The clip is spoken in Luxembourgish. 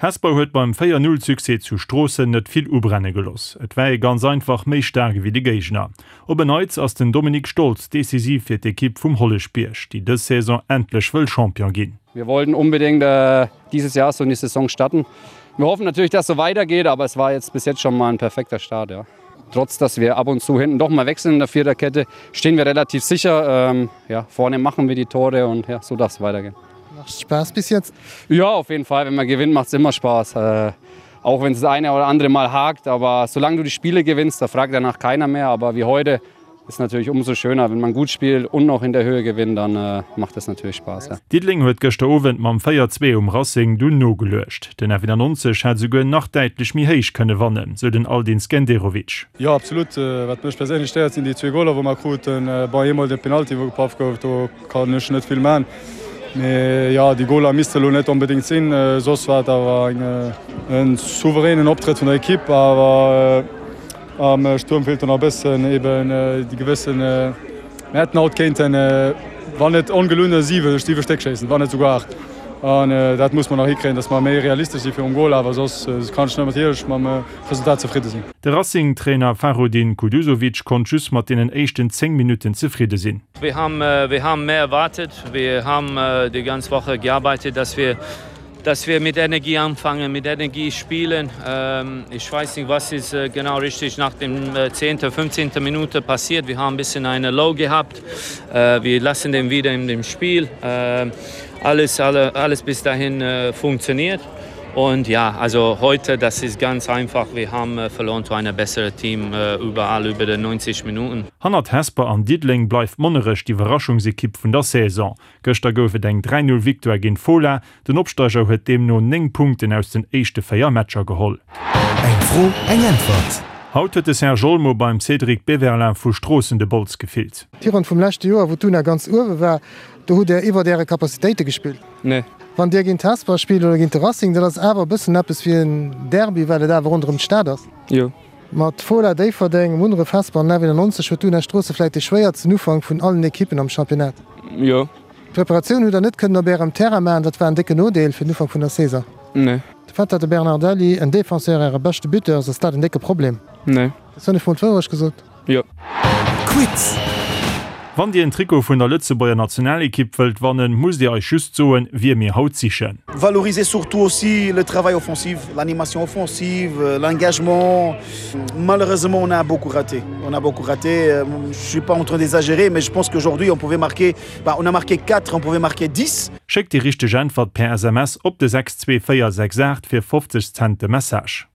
Hesper huet beim 4, 0 Succès zu Stroossen net vill ubrenne geloss. Et war ee ganz einfach méi staark ewéi de Géigner. Op en Neits ass den Dominik Stolz decisiv fir d'Ekipp vum Holleschbierg, déi dës Saison endlech wëll Champion ginn. Wir wollten unbedingt dieses Jahr so in die Saison starten. Wir hoffen natürlich, dass so weitergeht, aber es war jetzt bis jetzt schon mal ein perfekter Start. Ja. Trotz dass wir ab und zu hinten doch mal wechseln in der Viererkette, stehen wir relativ sicher. Ähm, ja, vorne machen wir die Tore und ja, so darf es weitergehen. Macht Spaß bis jetzt? Ja, auf jeden Fall. Wenn man gewinnt, macht es immer Spaß. Äh, auch wenn es das eine oder andere Mal hakt, aber solange du die Spiele gewinnst, da fragt danach keiner mehr. Aber wie heute ist natürlich umso schöner, wenn man gut spielt und noch in der Höhe gewinnt, dann äh, macht das natürlich Spaß. Ja. Diddeleng huet gëschter Owend mam 4, 2 um Racing dunn nogeluecht. Den F91 hätt esouguer nach däitlech méi héich kënne wannen, sou den Aldin Skenderovic. Jo absolut, wat mech perséinlech stéiert sinn déi zwee Goler wou mer kruten. Bon eemol de Penalty wou gepaff gouf, do kann ech net vill man. Mee jo déi Goler misste lo net onbedéngt sinn. Soss war et awer en souveränen Optrëtt vun der Ekipp, awer am Stuerm feelt do nach e bëssen eben déi gewëssen, mir hätten haut kéinten, wann net ongelunn, 7, 7 Stéck schéissen, wann net souguer 8. An dat muss mer nach hikréien, datt mer méi realistesch si virum Gol. Awer soss kann ech natierlech mam Resultat zefridde sinn. De Racing-Trainer Fahrudin Kuduzovic konnt just mat deenen éischten 10 Minutten zefridde sinn. Wir haben, wir haben mehr erwartet. Wir haben die ganze Woche gearbeitet, dass wir dass wir mit Energie anfangen, mit Energie spielen. Ähm, ich weiß nicht, was ist äh, genau richtig nach dem 10. Äh, 15. Minute passiert. Wir haben ein bisschen eine Low gehabt. Äh, wir lassen den wieder in dem Spiel. Äh, alles, alle, alles bis dahin äh, funktioniert. Und ja, also heute das ist ganz einfach. Wir haben äh, verloren zu einer besseren Team äh, überall über den 90 Minuten. Hannert Hesper an Diddeleng bleift Monnerech d'Iwwerraschungsekipp vun der Saison. Gëschter gouf et eng 3, 0 Victoire géint Fola. Den Opsteiger huet deemno 9 Punkten aus den éischte 4 Matcher geholl. Eng Fro, eng Äntwert. Haut huet de Serge Olmo beim Cédric Beverlin vu Stroossen de Bols gefillt. D'Virronn vum leschte Joer, wou d'Una ganz uewe war, do hutt Där iwwert Äre Capacitéite gespillt. Nee. Wann Dir géint Hesper spillt oder géint de Racing, dat ass awer e bëssen eppes wéi en Derby, well et awer ronderëm d'Stad ass. Jo. Mat Fola Déifferdeng, Munneref, Hesper an F91 huet d'Una Stroosse vläit dee schwéiertsten Ufank vun allen Ekippen am Championnat. Jo. D'Preparatioun hutt der net kënnen op ärem Terrain maachen, dat war en décken Nodeel fir den Ufank vun der Saison. Nee. De Fait, datt de Bernardelli, en Defenseur, äre beschte Buteur ass, ass dat en décke Problem? Nee. Hues du net mol d'Wourecht gesot? Jo. Quiz! Wann Dir en Trikot vun der Lëtzebuerger Nationalekipp wëllt wannen, musst Dir eis just soen, wie mir haut sichen. Valoriser surtout aussi le travail offensif, l'animation offensive, l'engagement. Malheureusement, on a beaucoup raté. On a beaucoup raté. Euh, je suis pas en train d'exagérer, mais je pense qu'aujourd'hui, on pouvait marquer, bah, on a marqué 4, on pouvait marquer 10. Schéckt déi richteg Äntwert per SMS op de 62468 fir 50 Cent de Message.